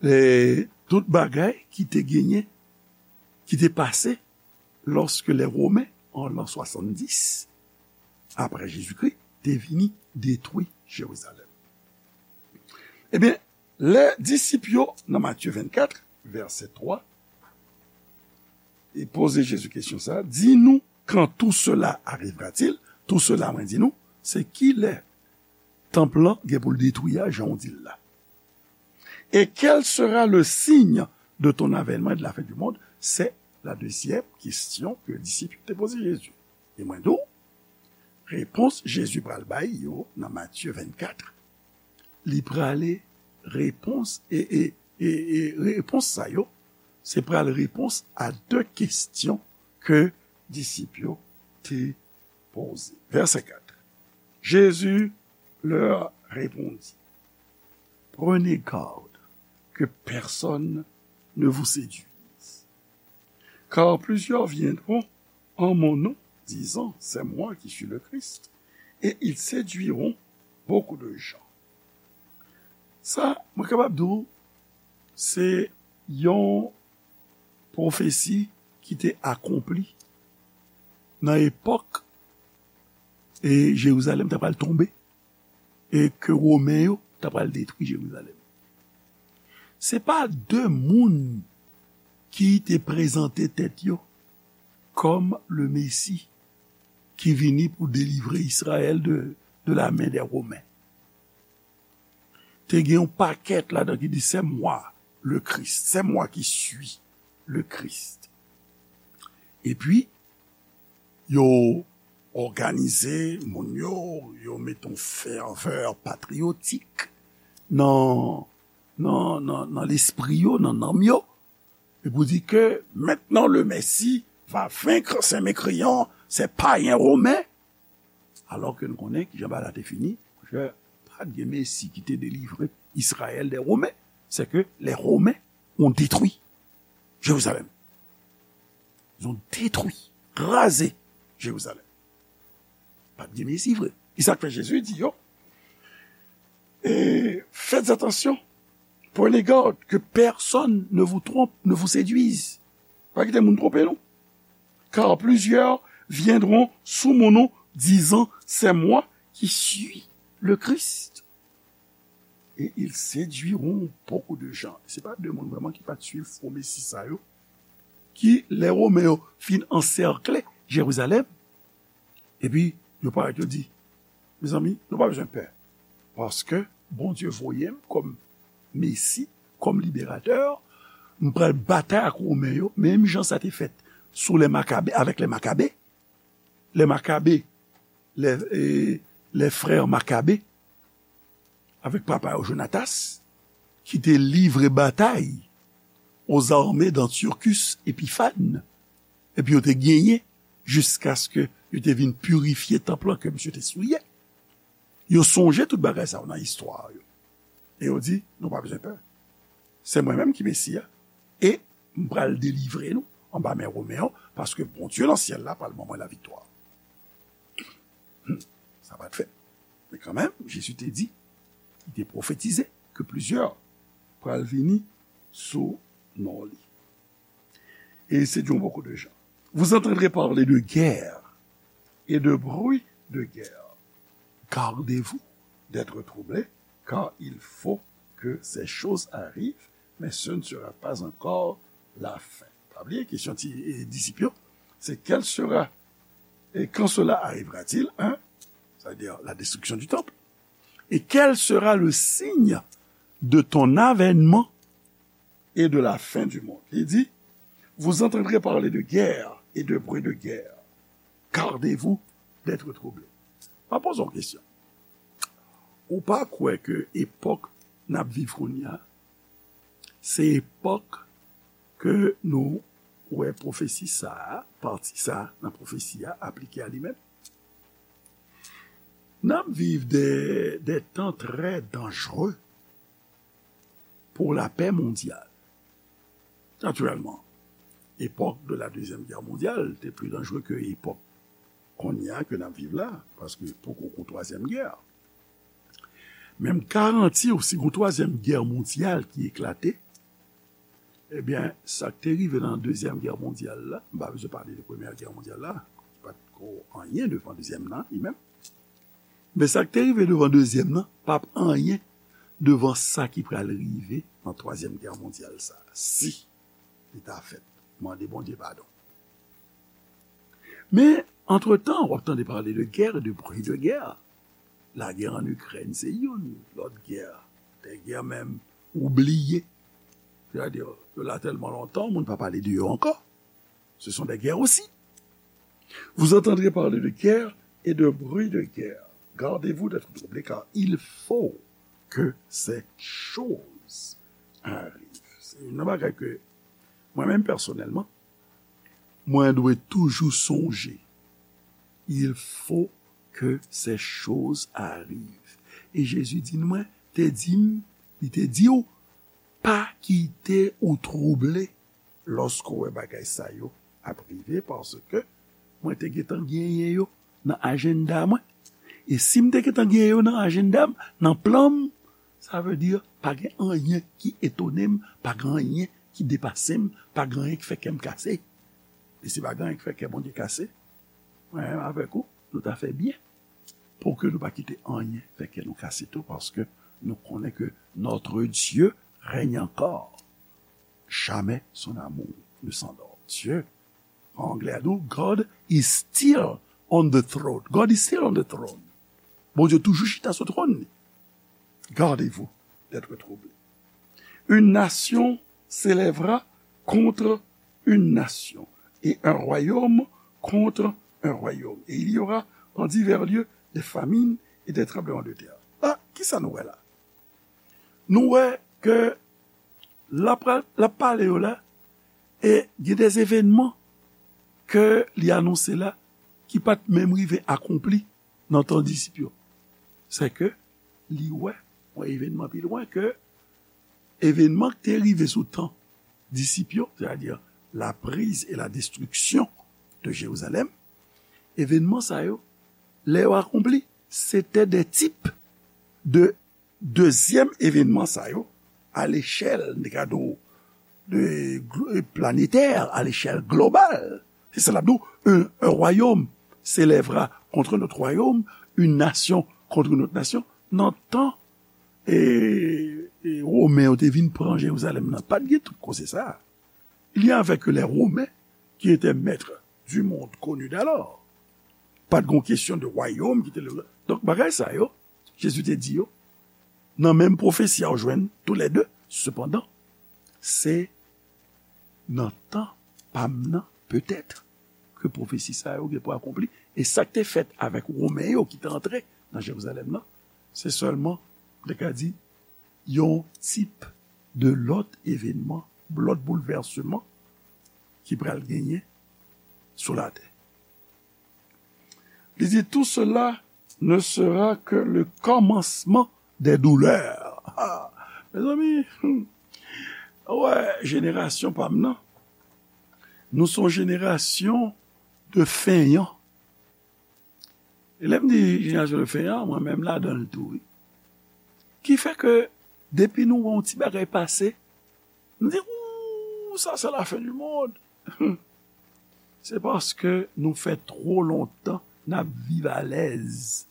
eh, tout bagay ki te genyen, ki te pase lòske lè Women, an lan swasanndis apre Jezikri, te vini detwi Jerizalèm. Ebyen, lè disip yo, nan Matye vennkat, vèsè twa, e poze Jezi kesyon sa, di nou, quand tout cela arrivera-t-il? Tout cela, mwen di nou, se ki lè tanp lan gen pou l detwi a, jan w di l la. Et quel sera le signe de ton avènement et de la fin du monde? C'est la deuxième question que disip yo te poze Jezi. E mwen di w, repons Jezi pral bay yo nan Matye vennkat, li prale repons, e, e, e, e repons sa yo, se pral repons a de kesyon ke disip yo te poze. Vèsè kat. Jésus leur répondit, prenez garde que personne ne vous séduise. Car plusieurs viendront en mon nom, disant, c'est moi qui suis le Christ, et ils séduiront beaucoup de gens. Sa, mwen kapab di w, se yon pwofesi ki te akonpli nan epòk e Jerizalèm ta pral tonbe e ke Women yo ta pral detwi Jerizalèm. Se pa de moun ki te prezante tèt yo kòm le Mesi ki vini pou delivre Izrayèl de, de la men dè Women. Te gen yon pakèt ladan ki di, c'est moi le Christ, c'est moi qui suis le Christ. Epi, yo òganize moun yo, yo mete yon fèvè patriyotik nan, nan, nan, nan lespri yo, nan nanm yo. E pou di ke maintenant le Messie va vaincre ces mécréants, ces païens romains. Alò ke nou konnen kijan bagay la te fini, ke pa t gen Mesi ki te delivre Izrayèl dè Women, c'est que les Romains ont détruit Jérusalem. Ils ont détruit, razé Jérusalem. Pa t gen Mesi vre. E sa k fè Jezi di yo, et faites attention, prenez garde que personne ne vous trompe, ne vous séduise. Pa kite moun twonpe nou. Car plusieurs viendront sous mon nom, disant, c'est moi qui suis le Christ. Et ils séduiront beaucoup de gens. Se pa de moun vrèman ki pa t swiv pwomesi sa yo, ki, lè Women yo fin ansèkle Jerizalèm, epi yo parèt, yo di, mezanmi, nou pa bezwen pè, paske Bondye voye m kòm Mesi, kòm liberatè, m pral batay ak Women yo, menm jan sa te fèt sou lè Makabe, avèk lè Makabe. Lè Makabe, lè, e, lè frè Makabe, avèk papa yo Jonatas, ki te livre batay aux armées d'Antiochus Épiphanes, epi yo te genyen jiskaske yo te vin pirifye tanp lan ke misye te souye. Yo sonje tout bagay sa yo nan istwa yo. E yo di, nou pa bezwen pè. Se mwen menm ki Mesi a. E m pral delivre nou anba men Women yo, paske Bondye nan syèl la pral ban mwen laviktwa. Hmm. Sa pa t fèt. Men kanmenm, Jezi te di, li te pwofetize ke plizyè pral vini sou non li. Et ils séduiront beaucoup de gens. Vous entendrez parler de guerre et de bruit de guerre. Gardez-vous d'être troublés, car il faut que ces choses arrivent, mais ce ne sera pas encore la fin. Pa bliye kesyon ti, e, disip yo, se quel sera, et quand cela arrivera-t-il, hein? C'est-à-dire la destruction du temple. Et quel sera le signe de ton avènement et de la fin du monde? Li di, vous entendrez parler de guerre et de bruit de guerre. Gardez-vous d'être troublés. M ap poze yon kesyon. Ou pa kwè ke epòk n ap viv kounye a, se epòk ke nou wè pwofesi sa a, pati sa a nan pwofesi a aplike a li menm? N ap viv de, de tan trè danjere pour la paix mondiale. Natirèlman, epòk de la Dezyèm Gè Mondyal te pli danjere ke epòk kounye a ke n ap viv la, paske poko gon twazyèm gè. Men m garanti w, si gon twazyèm gè mondyal ki eklate, ebyen, sa k te rive nan Dezyèm Gè Mondyal la, m pa bezwen pale de Premyè Gè Mondyal la, ki pa t ko anyen devan dezyèm nan, li menm. Men sa k te rive devan dezyèm nan p ap anyen devan sa ki pral rive nan twazyèm gè mondyal sa a, si li ta fèt. Mande Bondye padon. Men, antretan, w ap tande pale de guerre et de bruit de guerre. Lagè ann Ikrèn se youn, lòt gè, de gè menm ou bliye. Sètadi, yo la tèlman lontan, moun pa pale de yo ankò. Ce sont des guerres aussi. Vous entendrez parler de guerre et de bruit de guerre. Gardez-vous d'être troublés, car il faut que ces choses arrivent. Se youn nan bagay ke mwen menm pèsonèlman, mwen dwe toujou sonje. Il faut que ces choses arrivent. E Jezi di nou, mwen te di m, li te di w, pa kite ou twouble lòske w wè bagay sa yo ap rive, paske mwen te gentan genyen yo nan ajanda mwen. E si m te gentan genyen yo nan ajanda m, nan plan m, sa vle di pa gen anyen ki etone m, pa gen anyen ki depase m, pa gen anyen ki fè kè m kase. E si pa gen anyen ki fè kè Bondye kase, mwen menm avèk ou, nou ta fè byen pou ke nou pa kite anyen fè kè nou kase tou, paske nou konnen ke notre Dieu règne encore. Jamais son amour ne s'endort. Dieu, an anglè a di w, God is still on the throne. God is still on the throne. Bondye toujou chita sou twòn li. Gardez-vous d'être troublés. Une nation s'élèvera contre une nation, et un royaume contre un royaume. Et il y aura en divers lieux des famines et des tremblements de terre. La, kisa nou wè la? Nou wè ke l ap, l ap pale yo la, e gen de evènman ke li anonse la ki pa t menm rive akonpli nan tan disip yo. Sèke li wè yon evènman pi lwen ke evènman ki te rive sou tan disip yo, c'est-à-dire la prise et la destruction de Jérusalem, evènman sa yo, lè yo akonpli, se te de tip de dezyèm evènman sa yo, à l'échelle, n te ka di w, de glo-, planétaire, à l'échelle globale. Se sa l ap di w, un, un royaume s'élèvera contre notre royaume, une nation contre notre nation. Nan tan, e, e, Women yo te vin pran Jerizalèm nan, pa t gen tout koze sa a. Il y avait que les Romains qui étaient maîtres du monde connu d'alors. Pa t gon kesyon de wayòm ki te le. Donk, bagay sa yo, Jezi te di yo, nan menm pwofesi a, ou jwenn toulède. Sepandan, se nan tan pa m nan, petèt, ke pwofesi sa yo gen pou akonpli. E sa k te fèt avèk Women yo ki te antre nan Jerizalèm nan, se sèlman, m te ka di, yon tip de lòt evènman, lòt boulvèsman ki pral genyen sou latè. Li di, tout cela ne sera que le commencement des douleurs. Ah, mezanmi, hmm. Wè, jenerasyon pa m nan, nou se yon jenerasyon de feignants. E lè m di jenerasyon de feignants, mwen menm ladan l tou, wi. Ki fè ke depi nou wè yon ti bagay pase, nou di, ou, sa se la fin du monde. Se paske nou fè twò lontan n ap viv alèz.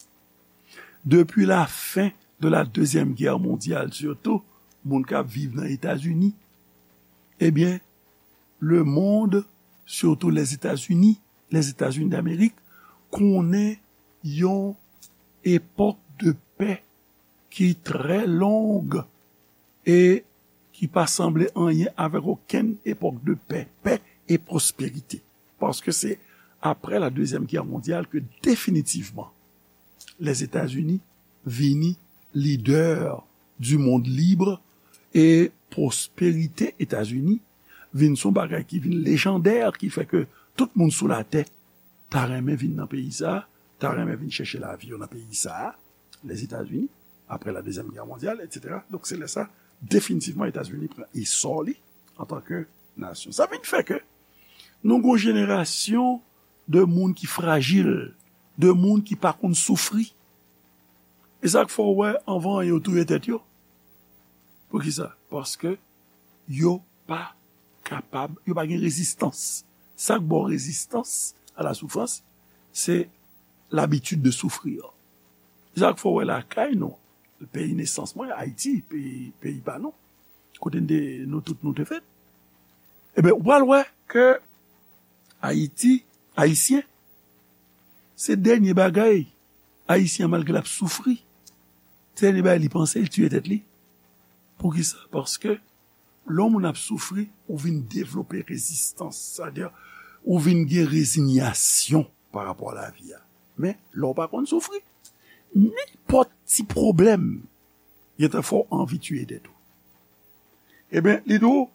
Depi la fin de la Deuxième Guerre mondiale, sitou moun k ap viv nan Etazini, ebyen, lemonn, sitou Lèzetazini, Lèzetazini d'Amerik, konnen yon epòk de pè ki trè long e ki pa sanble anyen avèk okenn epòk de pè, pè e pwosperite. Paske se apre la Dezyèm Gè Mondyal ke definitivman Lèzetazini vini lidè di mond lib e pwosperite Etazini vin son bagay ki vin lejandè, ki fè ke tout moun sou latè ta renmen vin nan peyi sa, ta renmen vin chèche lavi yo nan peyi sa, Lèzetazini, apre la Dezyèm Gè Mondyal, etsetera. Donk, se lè sa, definitivman, Etazini pran esò li antanke nasyon. Sa vin fè ke nou gon jenerasyon de moun ki frajil, de moun ki pa konn soufri. E sa k fè w wè anvan yo touye tèt yo. Poukisa? Paske yo pa kapab, yo pa gen rezistans. Sa k ba w rezistans a la soufrans, se labitid de soufrir. Sa k fè w wè lakay nou, peyi nesans mwen, Ayiti, peyi, peyi pa nou, kote n te, nou tout nou te fèt. Ebyen, ou pral wè ke Ayiti, Ayisyen, se dènye bagay Ayisyen an, malgre l ap soufri, se dènye bagay li panse, l tiye tèt li. Poukisa? Paske lè yon moun ap soufri, ou vin devlope rezistans. Sa vle di, ou vin gen rezinyasyon pa rapò a lavi a. Men, lè w pa konn soufri, nenpòt ti pwoblèm, gentan fè w anvi tiye tèt ou. Ebyen, li di w,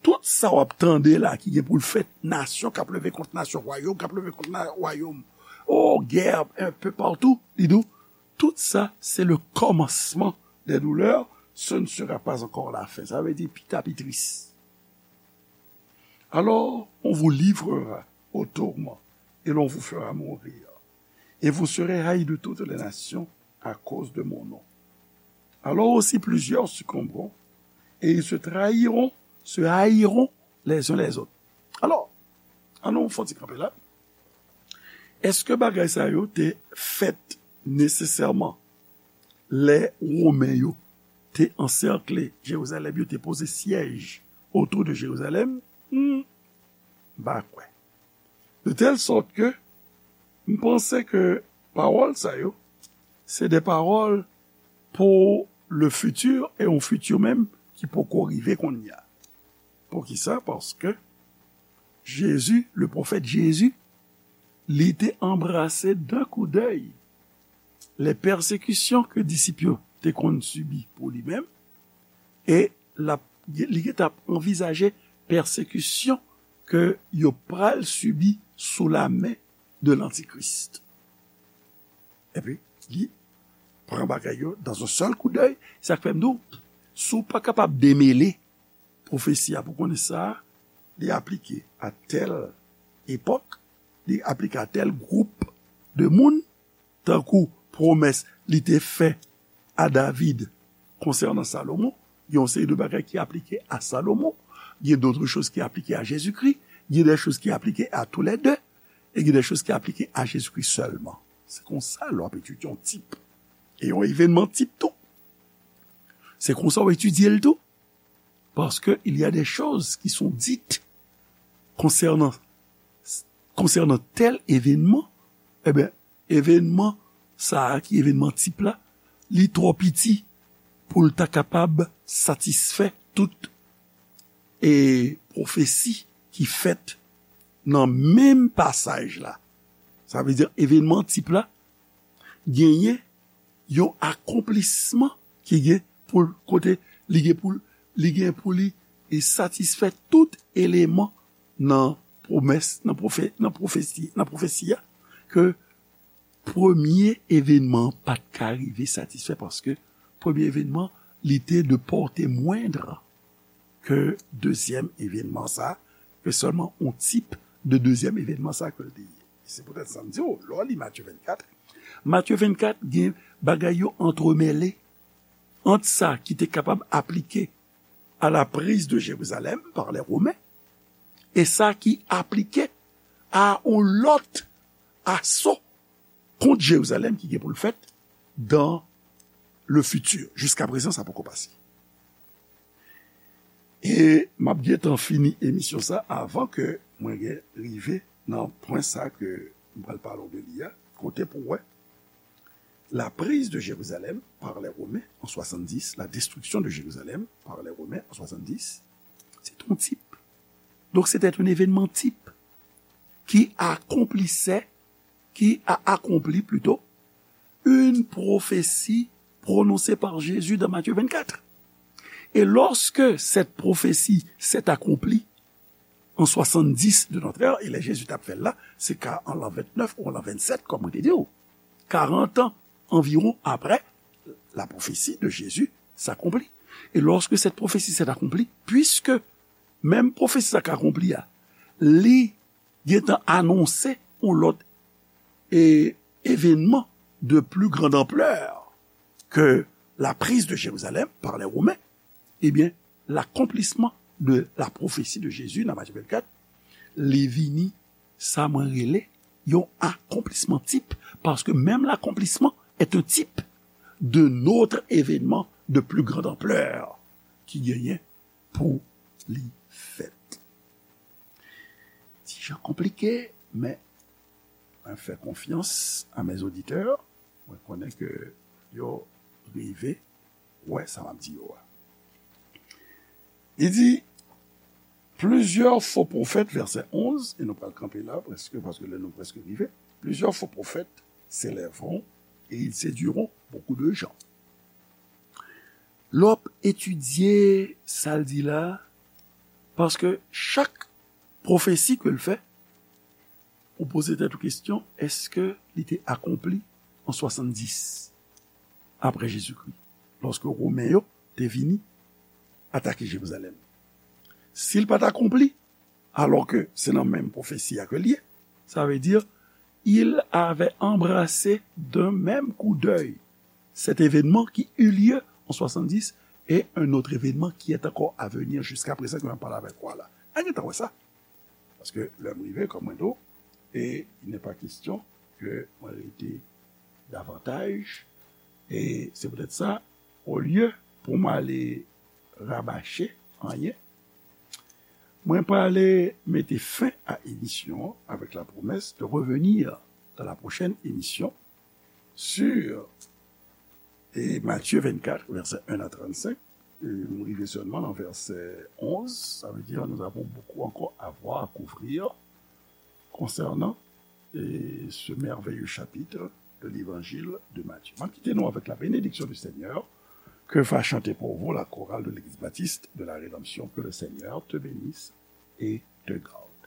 tout sa w ap tande la ki gen pou l fèt, nasyon k ap leve kont nasyon, wayòm k ap leve kont na- wayòm, o, gè enpe patou, li di w, tout sa, c'est le commencement des douleurs, ce ne sera pas encore la fin. Sa vle di, pita pi tris. Alors, on vous livrera au tourment, et l'on vous fera mourir. Et vous serez haïs de toutes les nations à cause de mon nom. Alors aussi plusieurs succomberont, et ils se trahiront, se haïront les uns les autres. Alò, ann nou fè yon ti kanpe la. Èske bagay sa yo te fèt nesesèman lè Women yo te ansèkle Jerizalèm, yo te poze syèj otou de Jerizalèm? Hmm, m pa kwè. De tèl sòt ke m panse ke pawòl sa yo, se de pawòl pou le futur, e yon futur menm ki poko rive kounye a. Poukisa? Paske Jezi, le pwofèt Jezi, li te anbrase d'un coup d'œil les persécutions ke disip yo te konn sibi pou li menm, e l ap, li gentan ap anvizaje pèsekisyon ke yo pral sibi sou la men de lantikris. Epi, li pran bagay yo dans un seul coup d'œil. Sa k fè m di w, si w pa kapab demele pwofesi a pou konnen sa, li aplike a tèl epòk, li aplike a tèl gwoup de moun, tankou pwomès li te fè a David konsènan Salomon, gen yon seri de bagay ki aplike a Salomon, gen d'autres choses ki aplike a Jezikri, gen des choses ki aplike a tou lè de, e gen des choses ki aplike a Jezikri sèlman. Se konsa lè w ap etidye yon tip. E yon evènman tip tou. Se konsa w etidye l tou. Parce que il y a des choses qui sont dites concernant, concernant tel événement. Ebyen, evènman sa a, ki evènman tip la, li twò piti pou l ta kapab satisfè tout e pwofesi ki fèt nan menm pasaj la. Sa vle di, evènman tip la genyen yon akonplisman ki gen pou l, kote li gen pou l, li gen pou li e satisfè tout eleman nan pwomès, nan pwofè-, nan pwofesi, nan pwofesi a, ke premye evènman an pa t ka rive satisfè, paske premye evènman, li te de pòte mwendr ke dezyèm evènman sa, ke sèlman yon tip de dezyèm evènman sa ke l te ye. Se poutèt sa m di w, lè w li Matye vennkat, Matye vennkat gen bagay yo antremele ant sa ki te kapab aplike à la prise de Jérusalem par les Romains, e sa ki aplike a yon lòt aso kont Jerizalèm ki gen pou l fèt dans le futur. Jiskaprezan, sa poko pase. E m ap gentan fini emisyon sa avan ke mwen gen rive nan pwen sa ke m pral pale w de li a, kote pou w wè la prise de Jérusalem par les Romains en soixante-dix, la destruction de Jérusalem par les Romains en soixante-dix, c'est un type. Donc c'était un événement type. qui accomplissait, qui a accompli plutôt, une prophétie prononcée par Jésus dans Matthieu vingt-quatre. Et lorsque cette prophétie s'est accomplie en soixante-dix de notre ère, e lè Jezi t ap fè l la, se ka an l'an vingt-neuf ou an l'an vingt-sept, kòm mwen te di w, quarante ans environ après, la prophétie de Jésus s'accomplit. Et lorsque cette prophétie s'est accomplie, puisque menm pwofesi sa k akonpli a, li gentan anonse yon lòt e, événement de plus grande ampleur que la prise de Jérusalem par les Romains, eh bien, l'accomplissement de la prophétie de Jésus dans Matthieu vingt-quatre, li vini sa mwen rele yon akonplisman tip, paske menm l'accomplissement est un type de notre événement de plus grande ampleur ki genyen pou li fèt. Ti jan konplike, men mwen fè konfyans a mes auditeurs. Mwen konnen ke yo rive wè sa m ap di yo a. Li di, plusieurs faux prophètes, verset onze, e nou pral kanpe la prèske, paske lè nou prèske rive. Plusieurs faux prophètes s'élèveront et ils séduiront beaucoup de gens. Lè w ap etidye sa l di la, paske chak pwofesi ke l fè, ou poze tèt ou kesyon, èske li te akonpli an swasanndis apre Jezikri, lòske Women yo te vini atake Jerizalèm? Si l pa t akonpli, alò ke se nan menm pwofesi a ke l ye, sa vle di, il avait embrassé d'un même coup d'œil cet événement qui eut lieu en soixante-dix et un autre événement qui est encore à venir jusqu'à présent, ke m ap pale avèk ou a la. Ann gentan wè sa. Paske lè m rive, kòm mwen di w, e il n'est pas question ke mwen rete davantaj. E se poutèt sa, olye pou m ale rabache anyen, mwen prale mete fen a emisyon an avec la promesse de revenir dans la prochaine émission sur e Matthieu vingt-quatre, verset un à trente-cinq. E m rive sèlman nan vèsè onz, ça veut dire nous avons beaucoup encore à voir, à couvrir concernant e ce merveilleux chapitre de l'évangile de Matthieu. M ap kite nou avec la bénédiction du Seigneur. Que va chanter pour vous la chorale de l'église baptiste de la Rédemption. Que le Seigneur te bénisse et te garde.